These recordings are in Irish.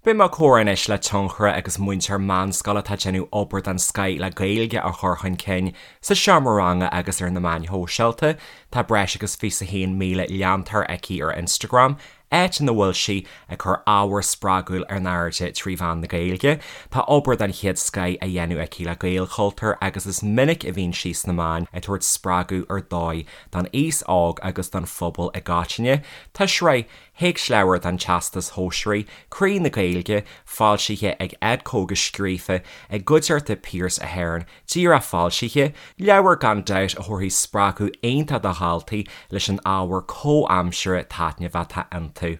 Beidh mé ag comhrá anois le tionchaire agus múinteoir meánscoile atá ag déanamh obair den scoith le Gaeilge a chur chun cinn sa seomra ranga agus ar na meáin shóisialta. Tá breis agus 21,000 leantóir aici ar Instagram, áit ina bhfuil sí ag cur ábhar spreagúil in airde trí mheán na Gaeilge. Tá obair den chéad scoith á dhéanamh aici le Gaelchultúr agus is minic a bhíonn sí sna meáin ag tabhairt spreagadh ar dóigh don aos óg agus don phobal i gcoitinne. Tá sraith théacsleabhar don Teastas Shóisearaigh, Croí na Gaeilge, foilsithe ag Edco agus scríofa i gcuideachta Pearse Ahern, díreach foilsithe, leabhar gan dabht a thabharfaidh spreagadh iontach do dhaltaí leis an ábhar comhaimseartha taitneamhach atá iontu.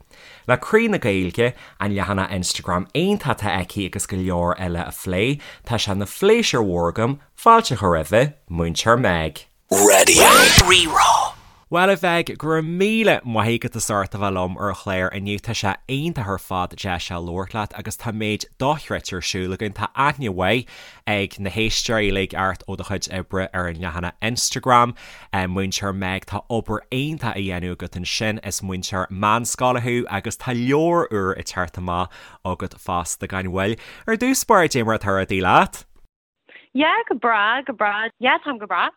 Le Croí na Gaeilge, an leathanach Instagram iontach atá aici agus go leor eile a phlé, tá sé ina phléisiúr mhór agam fáilte a chur roimhe, Múinteoir Meg. Raidió Rí-Rá. Bhuel a Mheig, go raibh míle maith agat as ucht a bheith liom ar an chlár inniu. Tá sé iontach ar fad deis a labhairt leat agus tá méid dochreidte ar siúl againn. Tá aithne mhaith ag na héisteoirí uilig ort ó do chuid oibre ar an leathanach Instagram. Múinteoir Meg, tá obair iontach á dhéanamh agat ansin. Is múinteoir meánscoile thú agus tá leabhar úr ag teacht amach agat fosta gan mhoill. Ar dtús báire, dé mar atá rudaí leat? Yeah, go breá, go breá. Yeah, táim go breá.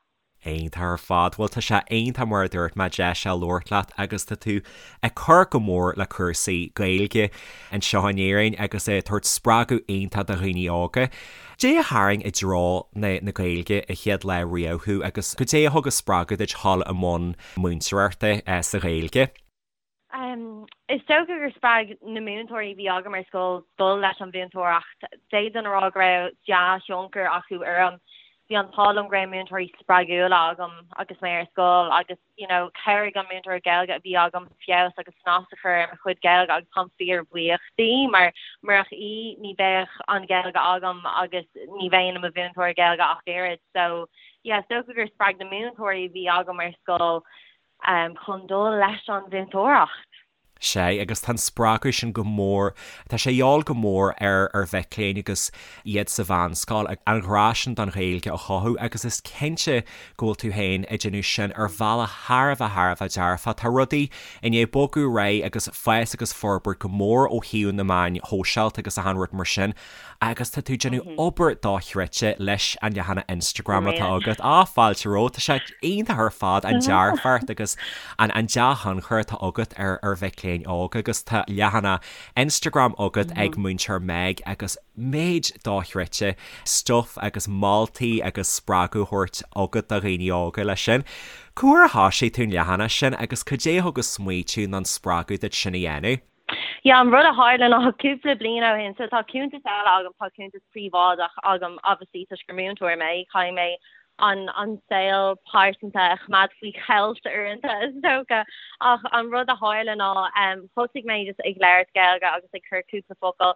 Iontach ar fad. Bhuel, tá sé iontach mar a dúirt mé deis a labhairt leat agus tá tú ag cur go mór le cúrsaí Gaeilge anseo in Éirinn agus ag tabhairt spreagadh iontach do dhaoine óga. Dé a tharraing i dtreo na na Gaeilge an chéad lá riamh thú agus goidé a thug an spreagadh duit dhul i mbun múinteoireachta sa Ghaeilge? Is dócha gur spreag na múinteoirí a bhí agam ar scoil dul leis an mhúinteoireacht. D'fhéadfainn a rá go raibh dea-thionchar acu orm. Bhí an t-ádh liom go raibh múinteoirí spreagúla agam agus mé ar scoil agus you know chabhraigh an múinteoir Gaeilge a bhí agam feabhas agus snas a chur ar mo chuid Gaeilge agus táim fíorbhuíoch di mar murach í ní bheadh an Ghaeilge agam agus ní bheinn i mo mhúinteoir Gaeilge ach oiread. So yeah is dócha gur spreag na múinteoirí a bhí agam ar scoil chun dul leis an mhúinteoireacht. Sea, agus tá an spreagadh sin go mór, tá sé a dhíobháil go mór ar ar mhic léinn agus iad sa mheánscoil, an ghrá sin don Ghaeilge a chothú agus is cinnte go bhfuil tú féin ag déanamh sin ar bhealach thar a bheith thar a bheith dearfach. Tá rudaí i ndiaidh bogadh ar aghaidh agus fás agus forbairt go mór ó thaobh na meáin shóisialta agus achan rud mar sin Agus tá tú ag déanamh obair dochreidte leis an leathanach Instagram atá agat. Á, fáilte romhat. Tá sé iontach ar fad an dearfacht agus an an dea-thionchar atá agat ar ar mhic léinn óga agus tá leathanach Instagram agat ag Múinteoir Meg agus méid dochreidte stuif agus moltaí agus spreagadh a thabhairt agat do dhaoine óga leis sin. Cá huair a thoisigh tú an leathanach sin agus cad é a thug an smaoitiú nó an spreagadh duit sin a dhéanamh? Yeah, an rud a tharla ná cúpla bliain ó shin, so tá cuntas eile agam, tá cuntas príobháideach agam obviously toisc gur múinteoir mé, caithfidh mé an an saol pearsanta a choimeád faoi cheilt uaireanta is dócha. Ach an rud a tharla ná um, thosaigh mé just ag labhairt Gaeilge agus ag cur cúpla focal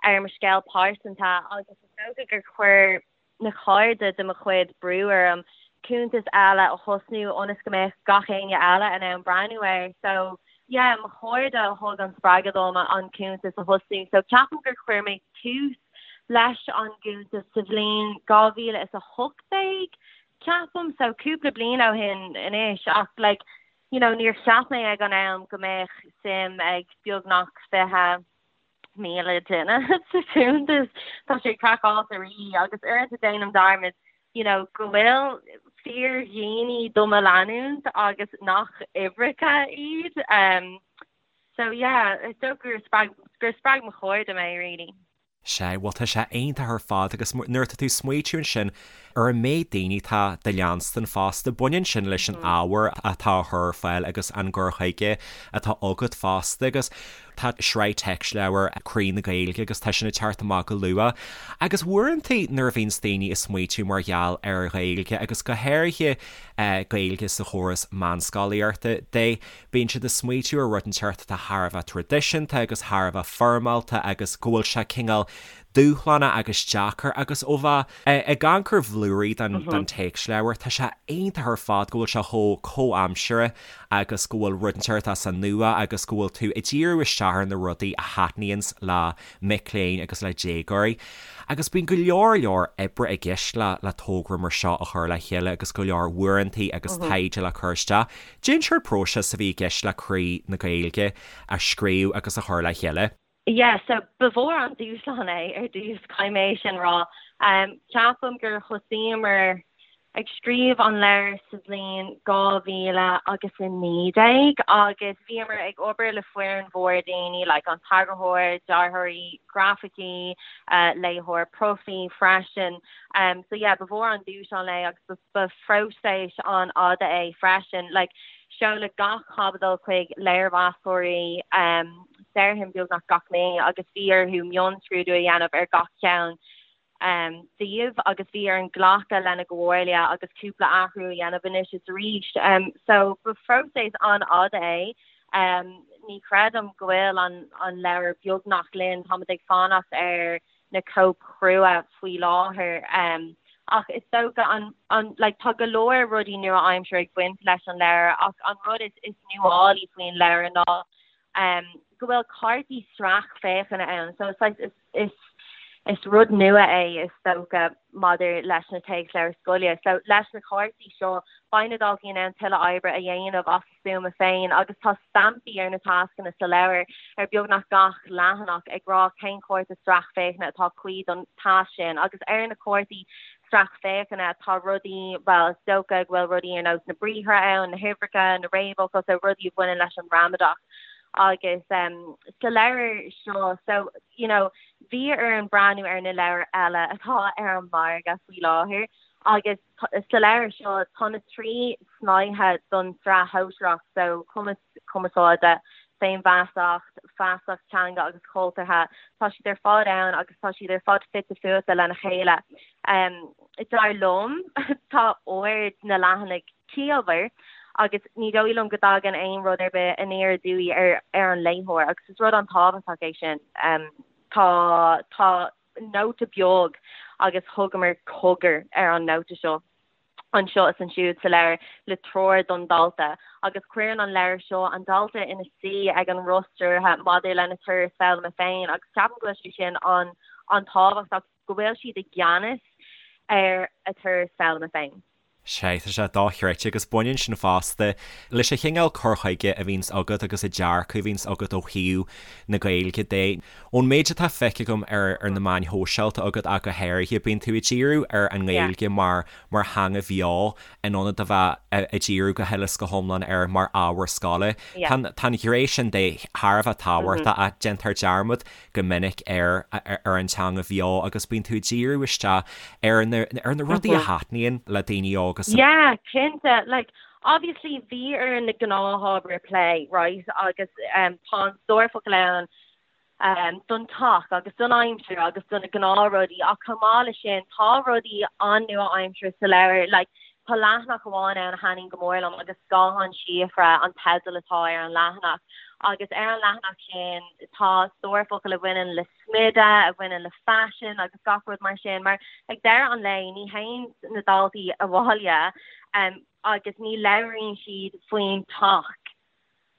ar mo scéal pearsanta agus is dócha gur chuir na cairde de mo chuid brú orm cuntas eile a thosnú ionas go mbeadh gach éinne eile in ann breathnú air. So yeah, mo chairde a thug an spreagadh dom an cuntas a thosnú. So ceapaim gur chuir mé tús leis an gcuntas sa bhliain 2018, ceapaim, so cúpla bliain ó shin anois ach like, you know, níor cheap mé ag an am go mbeadh suim ag beagnach 20 10,000 duine sa chuntas. Tá sé craiceáilte really agus uaireanta déanaim dearmad you know go bhfuil fíordhaoine do mo leanúint agus nach uimhreacha iad. Um, so yeah, is dócha gur spreag, gur spreag mo chairde mé really. Sea, bhuel tá sé iontach ar fad agus nuair atá tú ag smaoitiú ansin ar an méid daoine atá do leanstan fosta, baineann sin leis an ábhar atá á chur ar fáil agus an gcur chuige atá agat fosta agus Tá sraith téacsleabhar Croí na Gaeilge agus tá sin ag teacht amach go luath. Agus uaireanta nuair a bhíonns daoine ag smaoitiú mar gheall ar Ghaeilge agus go háirithe Gaeilge sa chóras meánscolaíochta de, bíonn siad ag smaoitiú ar rud inteacht atá thar a bheith traidisiúnta agus thar a bheith foirmeálta agus go bhfuil sé cineál dúshlánach agus deacair agus ó bheith ag amharc ar bhlúirí den téacsleabhar, tá sé iontach ar fad go bhfuil sé chomh comhaimseartha agus go bhfuil rud inteacht as an nua agus go bhfuil tú ag díriú isteach ar na rudaí a thaitníonns le mic léinn agus le déagóirí. Agus bíonn go leor leor oibre i gceist le le togra mar seo a chur le chéile agus go leor uaireantaí agus taighde le cur isteach. Cén sórt próiseas a bhí i gceist le Croí na Gaeilge a scríobh agus a chur le chéile. Yeah, so ba mhór an dúshlán é ar dtús, caithfidh mé é sin a rá. Ceapaim gur thosaíomar ag scríobh an leabhair sa bhliain 2019 agus bhíomar ag obair le foireann mhór daoine, like an t-eagarthóir, dearthóirí grafaicí, léitheoir profaí freisin. So yeah, ba mhór an dúshlán é agus ba phróiseas an-fhada é freisin. Like seoladh gach caibidil chuig léirmheastóirí, déarfainn beagnach gach mí agus bhí orthu mionscrúdú a dhéanamh ar gach ceann díobh agus bhí orainn glacadh lena gcomhairle agus cúpla athrú a dhéanamh anois is arís. So ba phróiseas an-fhada é. Ní chreidim go bhfuil an leabhar beagnach linn, táimid ag fanacht ar na cóip chrua faoi láthair. Ach is dócha an, an, like tá go leor rudaí nua-aimseartha ag baint leis an leabhar ach an rud is, is nuálaí faoin leabhar ná go bhfuil cártaí sracfhéachana ann. So it's like, is, is, is rud nua é is dócha maidir leis na téacsleabhair scoile. So leis na cártaí seo beidh na daltaí in ann tuilleadh oibre a dhéanamh as a stuama féin agus tá stampaí ar na tascanna sa leabhar ar beagnach gach leathanach ag rá cén cárta sracfhéachana atá cuí don tasc sin agus ar na cártaí sracfhéachana tá rudaí, bhuel is dócha go bhfuil rudaí ar nós na briathra ann, na huimhreacha, na réamhfhocail, so rudaí a bhaineann leis an ngramadach agus sa leabhar seo so you know bhí orainn breathnú ar na leabhair eile atá ar an margadh faoi láthair agus sa leabhar seo tá na 3 snáithe don tsraith shóisearach so cumas cumarsáide, féinfheasacht, feasacht teanga agus chultúrtha, tá siad ar fad ann agus tá siad ar fad fite fuaite lena chéile. Dar liom, tá ord na leathanaigh ciallmhar agus ní dóigh liom go dtagann aon rud ar bith aniar aduaidh ar ar an léitheoir agus is rud an-tábhachtach é sin. Tá tá nóta beag agus thugamar cogar ar an nóta seo. anseo is ansiúd sa leabhar le treoir don dalta agus cuireann an leabhar seo an dalta ina suí ag an roth stiúrtha maidir lena turas foghlama féin agus ceapaim go bhfuil sé sin an-tábhachtach, go bhfuil siad i gceannas ar a turas foghlama féin. Sea, tá sé dochreidte agus baineann sin fosta leis an chineál cur chuige a bhíonns agat agus an dearcadh a bhíonns agat ó thaobh na Gaeilge de. Ón méid atá feicthe agam ar ar na meáin shóisialta agat ach go háirithe, bíonn tú ag díriú ar an nGaeilge mar mar theanga bheo in ionad a bheith ag díriú go huile is go hiomlán air mar ábhar scoile. Tá an ghné sin de thar a bheith tábhachtach ach déantar dearmad go minic ar ar an teanga bheo agus bíonn tú ag díriú isteach ar na ar na rudaí a thaitníonn le daoine óga sa Yeah, cinnte. Like, obviously bhí orainn na gnáthábhair a phlé, right, agus tá an stór focal ann don teach agus don aimsir agus do na gnáthrudaí ach chomh maith leis sin tá rudaí an-nua-aimseartha sa leabhar like tá leathanach amháin ann a thaitníonn go mór liom agus Scáthán Síofra an teideal atá ar an leathanach agus ar an leathanach sin tá stór focal a bhaineann le smideadh, a bhaineann le faisean agus gach rud mar sin mar ag deireadh an lae ní théann na daltaí abhaile agus ní labhraíonn siad faoin teach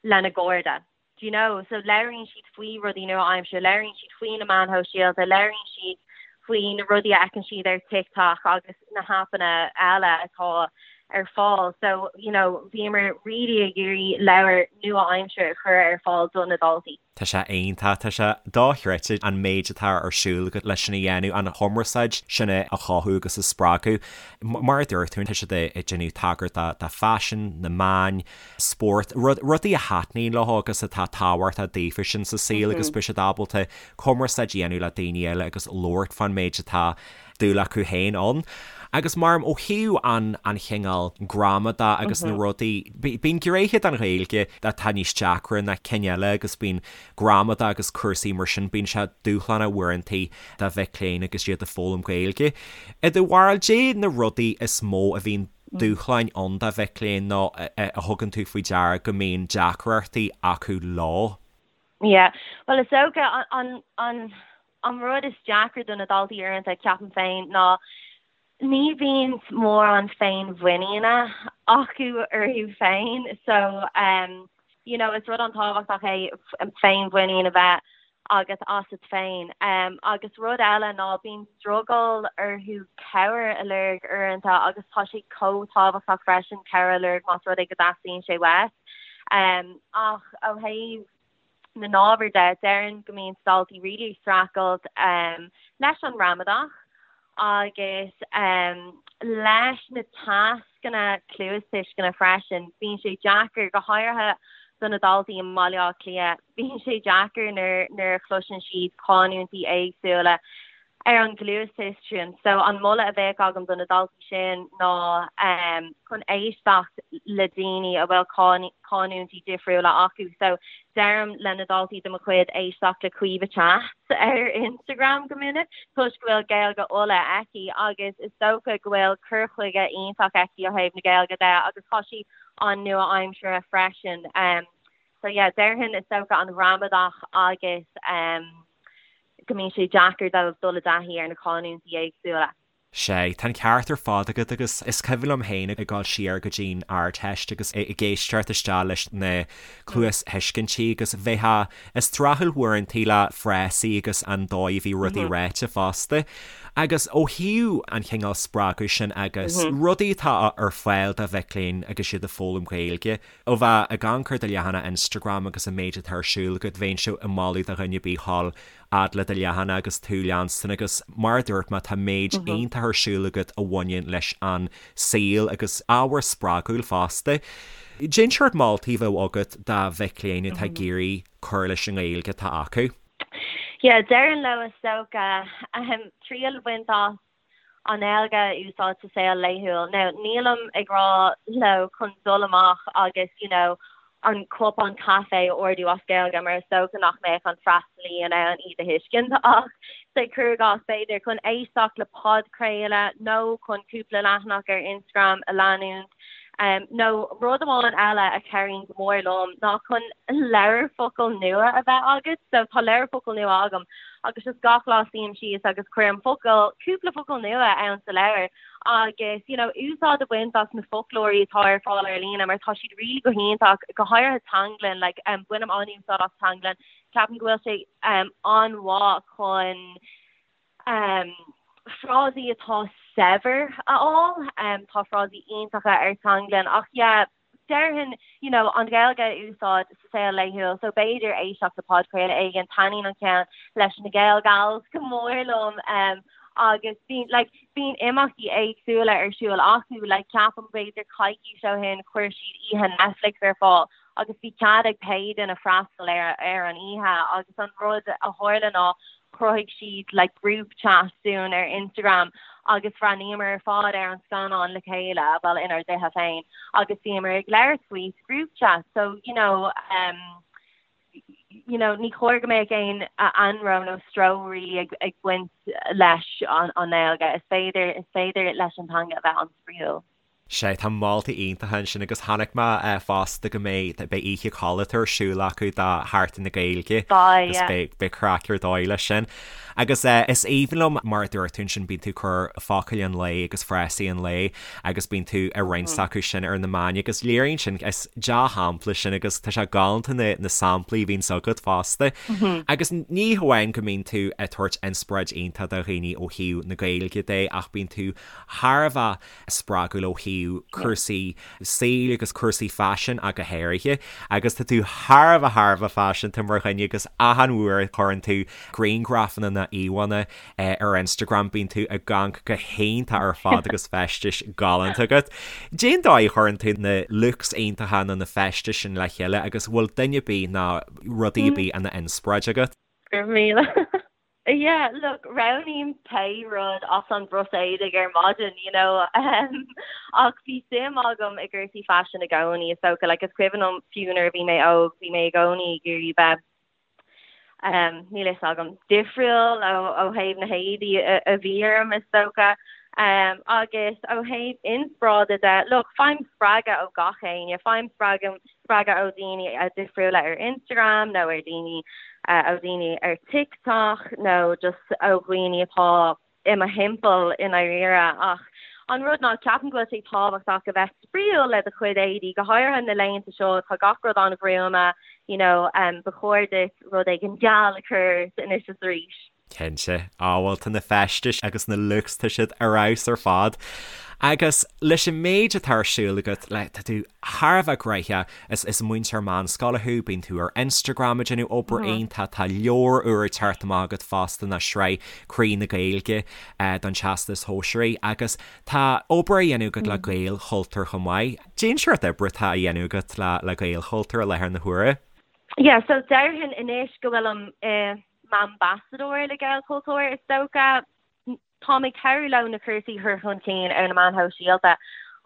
lena gcairde. Do you know? So labhraíonn siad faoi rudaí nua-aimseartha, labhraíonn siad faoi na meáin shóisialta, labhraíonn siad faoi na rudaí a fheiceann siad ar TikTok agus na haipeanna eile atá ar fáil. So, you know, bhíomar really ag iarraidh leabhar nua-aimseartha a chur ar fáil do na daltaí. Tá sé iontach, tá sé dochreidte an méid atá ar siúl agat leis sin a dhéanamh, an chumarsáid sin a chothú agus a spreagadh. Mar a dúirt tú, tá siad ag déanamh tagairt do faisean, na meáin, spórt, rudaí a thaitníonn leo agus atá tábhachtach daofa sin sa saol agus beidh siad ábalta cumarsáid a dhéanamh le daoine eile agus labhairt fán méid atá dúil acu féin ann. Agus mar ó thaobh an an chineál gramadach agus na rudaí, bíonn gnéithe den Ghaeilge atá níos deacra ná cinn eile agus bíonn gramadach agus cúrsaí mar sin, bíonn sé dúshlánach uaireantaí do mhic léinn agus iad ag foghlaim Gaeilge. I do bharúil, caidé na rudaí is mó a bhíonn dúshláin ann do mhic léinn nó a thugann tú faoi deara go mbíonn deacrachtaí acu leo? Yeah, bhuel is dócha an an an rud is deacra do na daltaí uaireanta, ceapaim féin, ná ní bhíonn mórán féinmhuiníne acu orthu féin so um you know, is rud an-tábhachtach é féinmhuinín a bheith agat asat féin. Agus rud eile ná bíonn drogall orthu cabhair a lorg uaireanta agus tá sé chomh tábhachtach freisin cabhair a lorg más rud é go dteastaíonn sé uait. Ach ó thaobh. na n-ábhar de, déarfainn go mbíonn daltaí really ag streachailt leis an ngramadach agus leis na tascanna cluastuisceana freisin. Bíonn sé deacair, go háirithe do na daltaí i mBaile Átha Cliath, bíonn sé deacair nuair a chloiseann siad canúintí éagsúla. ar an gcluastuiscint. So an moladh a bheadh agam do na daltaí sin ná chun éisteacht le daoine a bhfuil canúintí difriúla acu. So deirim le na daltaí de mo chuid éisteacht le Caoimhe Chats ar Instagram go minic toisc go bhfuil Gaeilge Uladh aici agus is dócha go bhfuil cur chuige iontach aici ó thaobh na Gaeilge de agus tá sí an-nua-aimseartha freisin. So yeah, déarfainn is dócha an ghramadach agus go mbíonn sé deacair dóibh dul i dtaithí ar na canúintí éagsúla. Sea, tá an ceart ar fad agat agus is cuimhin liom féin ag dul siar go dtí'n Ardteist agus ag éisteacht isteach leis na cluasthuiscintí agus bheifeá ag streachailt uaireantaí le frásaí agus an dóigh a bhí rudaí ráite fosta. Agus ó thaobh an chineál spreagadh sin agus rudaí atá ar fáil do mhic léinn agus iad ag foghlaim Gaeilge, Ó bheith ag amharc ar do leathanach Instagram agus an méid atá ar siúl agat, bheinnse ag moladh do dhuine ar bith dhul fhad le do leathanach agus tú a leanstan agus mar a dúirt mé tá méid iontach ar siúl agat a bhaineann leis an saol agus ábhar spreagúil fosta. Cén seort moltaí a bheadh agat do mhic léinn atá ag iarraidh cur leis an nGaeilge atá acu? Yeah, déarfainn leo is dócha triail a bhaint as an Ghaeilge a úsáid sa saol laethúil. Now, nílim ag rá leo chun dul amach agus you know an cupán caife a ordú as Gaeilge mar is dócha nach mbeadh an freastalaí in ann iad a thuiscint ach say cuir i gcás b'fhéidir chun éisteacht le podchraoladh nó chun cúpla leathanach ar Instagram a leanúint nó rud amháin eile a chabhraíonn go mór liom ná chun leabhar focal nua a bheith agat. So tá leabhar focal nua agam agus just gach lá suím síos agus cuirim focal, cúpla focal nua ann sa leabhar agus you know úsáid a bhaint as na foclóirí atá ar fáil ar líne mar tá siad really go hiontach, go háirithe Teanglann, like um, bainim an-úsáid as Teanglann, ceapaim go bhfuil sé um, an-mhaith chun um, frásaí atá saibhir a fháil, um, tá frásaí iontacha ar Teanglann ach yeah, déarfainn you know, an Ghaeilge a úsáid sa saol laethúil so b'fhéidir éisteacht le podchraoladh éigin, taitníonn an ceann leis na Gael Gals go mór liom um, agus bíonn like, bíonn imeachtaí éagsúla ar siúl acu like, ceapaim b'fhéidir coicís ó shin chuir siad oíche Netflix ar fáil agus bhí cead ag pé duine freastal ar, ar an oíche agus an rud a tharla ná chruthaigh siad like group chat dúinn ar Instagram agus bhreathnaíomar ar fad ar an scannán le chéile, bhuel inár dtithe féin, agus bhíomar ag labhairt faoi sa group chat. So, you know, um, you know, ní chóir go mbeadh aon anró nó stró really ag, ag baint leis an, an nGaeilge. Is féidir, is féidir leis an teanga a bheith an-spraíúil. Sea, tá moltaí iontacha ansin agus chonaic mé fosta go mbeidh, beidh oíche codlata ar siúl acu do Sheachtain na Gaeilge agus beidh, beidh craic ar dóigh leis sin. Agus is aoibhinn liom mar a dúirt tú ansin, bíonn tú ag cur focail an lae agus frásaí an lae agus bíonn tú ag roinnt acu sin ar na meáin agus léiríonn sin, is dea-shampla sin agus tá sé galánta na, na samplaí a bhíonns agat fosta. Agus ní hamháin go mbíonn tú ag tabhairt inspioráid iontach do dhaoine ó thaobh na Gaeilge de ach bíonn tú thar a bheith spreagúil ó thaobh cúrsaí saoil agus cúrsaí faisin ach go háirithe agus tá tú thar a bheith thar a bheith faiseanta mar dhuine agus achan uair a chuireann tú grianghrafanna nó íomhánna ar Instagram bíonn tú ag amharc go hiontach ar fad agus feistis galánta agat. Cén dóigh a chuireann tú na looks iontacha nó na feistis sin le chéile agus bhfuil duine ar bith nó rudaí ar bith ina inspioráid agat? Go raibh míle. Yeah, look, roghnaím pé rud as an bpros éadaigh ar maidin, you know, um, ach bhí suim agam i gcúrsaí faisin i gcónaí, is dócha, like, is cuimhin liom fiú nuair a bhí mé óg, bhí mé i gcónaí ag iarraidh bheith, um, níl fhios agam, difriúil ó, ó thaobh na héadaí a, a bhí orm, is dócha. Um, agus ó thaobh inspioráide de, look, faighim spreagadh ó gach éinne, faighim spreagadh spreagadh ó dhaoine difriúla ar Instagram nó ar daoine ó dhaoine ar TikTok nó just ó dhaoine atá i mo thimpeall i ndáiríre. Ach an rud ná ceapaim go bhfuil sé tábhachtach a bheith spraíúil le do chuid éadaí, go háirithe na laethanta seo, tá gach rud an-ghruama, you know, um, ba chóir duit rud éigin geal a chur ort anois is arís. Cinnte. Á bhuel tá na feistis agus na looks tá siad ar fheabhas ar fad. Agus leis an méid atá ar siúl agat, like, tá tú thar a bheith gnoitheach, is, is múinteoir meánscoile thú, bíonn tú ar Instagram ag déanamh obair iontach, tá leabhar úr ag teacht amach agat fosta ná sraith Croí na Gaeilge don Teastas Shóisearaigh agus tá obair á dhéanamh agat le Gaelchultúr chomh maith. Cén seort oibre atá á dhéanamh agat le, le Gaelchultúr i láthair na huaire? Yeah, so déarfainn anois go bhfuilim i m'ambasadóir le Gaelchultúr, is dócha. Táim ag cabhrú leo na cúrsaí a chur chun cinn ar na meáin shóisialta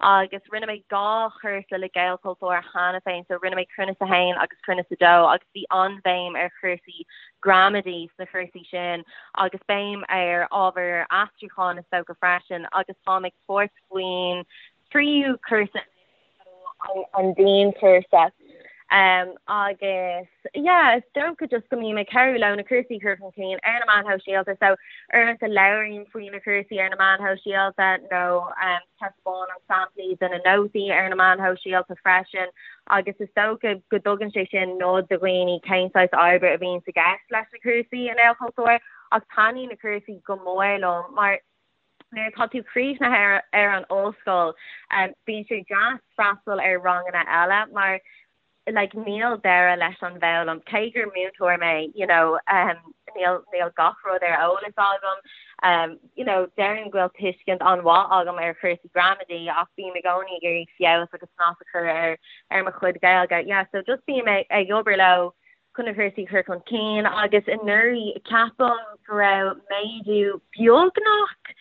agus rinne mé 2 chúrsa le Gaelchultúr cheana féin, so rinne mé Cruinneas 1 agus Cruinneas 2 agus bhí an-bhéim ar chúrsaí gramadaí sna cúrsaí sin agus béim ar ábhar aistriúcháin is dócha freisin agus táim ag tabhairt faoin tríú cúrsa an dianchúrsa agus yeah is dócha just go mbím ag cabhrú leo na cúrsaí a chur chun cinn ar na meáin shóisialta so uaireanta labhraím faoi na cúrsaí ar na meáin shóisialta nó taispeánaim samplaí de na nótaí ar na meáin shóisialta freisin agus is dócha go dtugann sé sin nod do dhaoine cén saghas oibre a bhíonn i gceist leis na cúrsaí i nGaelchultúr ach taitníonn na cúrsaí go mór liom mar Nuair atá tú críochnaithe ar an ollscoil, bíonn sé deas freastal ar ranganna eile mar like níl deireadh leis an bhfoghlaim. Cé gur múinteoir mé, you know, níl níl gach rud ar eolas agam. You know, déarfainn go bhfuil tuiscint an-mhaith agam ar chúrsaí gramadaí ach bím i gcónaí ag iarraidh feabhas agus snas a chur ar ar mo chuid Gaeilge. Yeah, so just bím ag ag obair leo chun na cúrsaí a chur chun cinn agus anuraidh ceapaim go raibh méadú beagnach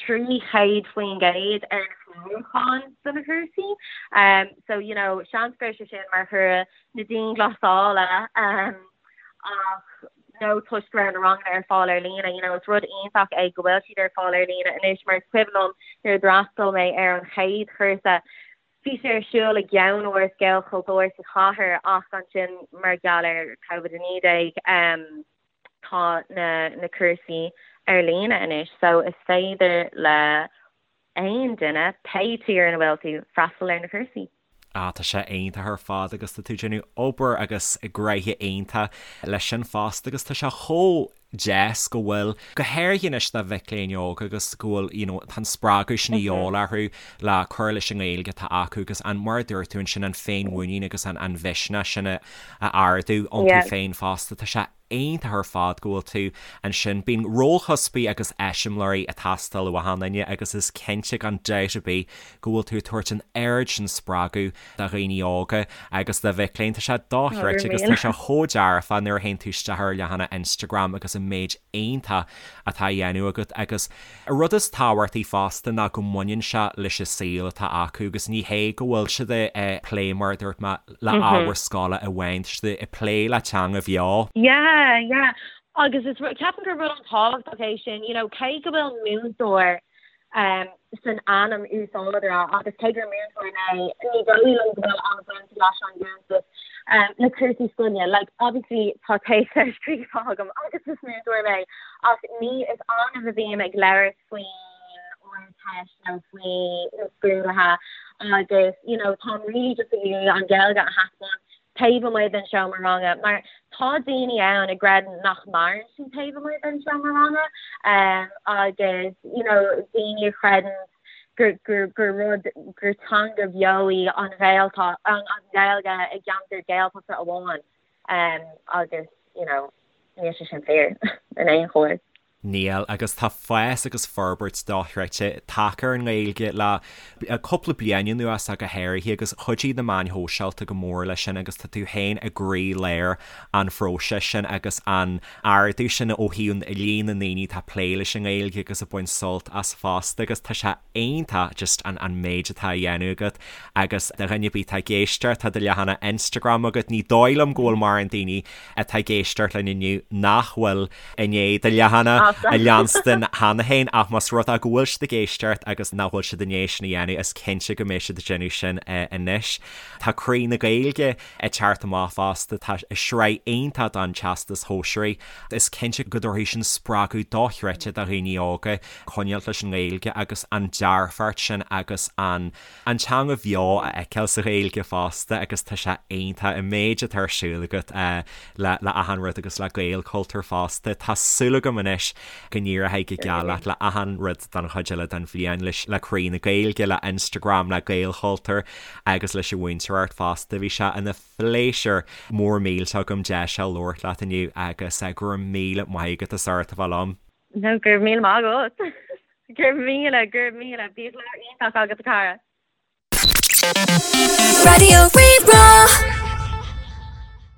300% ar na clárúcháin do na cúrsaí. So you know seans go raibh sé sin mar thoradh na dianghlasála ach nó toisc go raibh na ranganna ar fáil ar líne, you know is rud iontach é go bhfuil siad ar fáil ar líne anois mar is cuimhin liom nuair a d'fhreastail mé ar an chéad chúrsa Bhí sé ar siúl i gceannáras Gaelchultúir sa chathair ach ansin mar gheall ar Covid-19 tá na na cúrsaí ar líne anois so is féidir le aon duine, pé tír ina bhfuil tú, freastal ar na cúrsaí. Ah tá sé iontach ar fad agus tá tú ag déanamh obair agus gnoithe iontach leis sin fosta agus tá sé chomh deas go bhfuil, go háirithe anois do mhic léinn óga agus go bhfuil, you know, tá an spreagadh sin a dhíobháil orthu le cur leis an nGaeilge atá acu agus an, mar a dúirt tú ansin, an féinmhuinín agus an, an mhisneach sin a, a ardú iontu féin fosta. Tá sé iontach ar fad go bhfuil tú ansin. Bíonn rólchuspaí agus eiseamláirí ag teastáil ó achan duine agus is cinnte gan dabht ar bith go bhfuil tú ag tabhairt an oiread sin spreagadh do dhaoine óga agus do mhic léinn. Tá sé dochreidte agus tá sé chomh dearfa nuair a théann tú isteach ar leathanach Instagram agus an méid iontach atá á dhéanamh agat agus an rud is tábhachtaí fosta ná go mbaineann sé leis an saol atá acu agus ní hé go bhfuil siad ag plé mar a dúirt mé le ábhar scoile amháin, tá siad ag plé le teanga bheo. Yeah, yeah. Agus is ceapaim gur rud an-tábhachtach é sin, you know, cé go bhfuil múinteoir san ainm úsáideora agus cé gur múinteoir mé, ní dóigh liom go bhfuil an-bhaint leis an gcuntas le cúrsaí scoile. Like, obviously tá téacs scríofa agam agus is múinteoir mé ach ní is annamh a bhím ag labhairt faoin Ardteist nó faoi na scrúduithe agus you know táim really just ag iarraidh an Ghaeilge a thaispeáint taobh amuigh den seomra ranga mar tá daoine ann a gcreideann nach maireann sí taobh amuigh den seomra ranga agus you know daoine a chreideann gur gur gur rud gur teanga bheo í an Ghaelta an Ghaeilge i gceantar Gaeltachta amháin agus you know níl sé sin fíor in aon chor. Níl, agus tá fás agus forbairt dochreidte tagtha ar an nGaeilge le cúpla bliain anuas ach go háirithe agus chuidigh na meáin shóisialta go mór leis sin agus tá tú féin i gcroí-lár an phróisis sin agus an ardú sin ó thaobh líon na ndaoine atá ag plé leis an nGaeilge agus ag baint sult as fosta agus tá sé iontach just an an méid atá á dhéanamh agat agus do dhuine ar bith atá ag éisteacht tá do leathanach Instagram agat, ní dóigh liom go bhfuil mórán daoine atá ag éisteacht linn inniu nach bhfuil i ndiaidh do leathanach. A leanstan cheana féin ach más rud é go bhfuil siad ag éisteacht agus nach bhfuil siad i ndiaidh sin a dhéanamh is cinnte go mbeidh siad ag déanamh sin anois. Tá Croí na Gaeilge ag teacht amach fosta, tá sraith iontach don Teastas Shóisearaigh. Is cinnte go dtabharfaidh sin spreagadh dochreidte do dhaoine óga coinneáilt leis an nGaeilge agus an dearfacht sin agus an an teanga bheo a fheiceáil sa Ghaeilge fosta agus tá sé iontach an méid atá ar siúl agat le le achan rud agus le Gaelchultúr fosta. Tá súil agam anois go n-éireoidh go geal leat le achan rud don chuid eile den bhliain leis le Croí na Gaeilge, le Instagram, le Gaelchultúr agus leis an mhúinteoireacht fosta. Bhí sé ina phléisiúr mór millteach agam deis a labhairt leat inniu agus go raibh míle maith agat as ucht a bheith liom. No, go raibh míle maith agat. Go raibh míle, go raibh míle. Bíodh lá iontach agat a chara. Raidió Rí-Rá.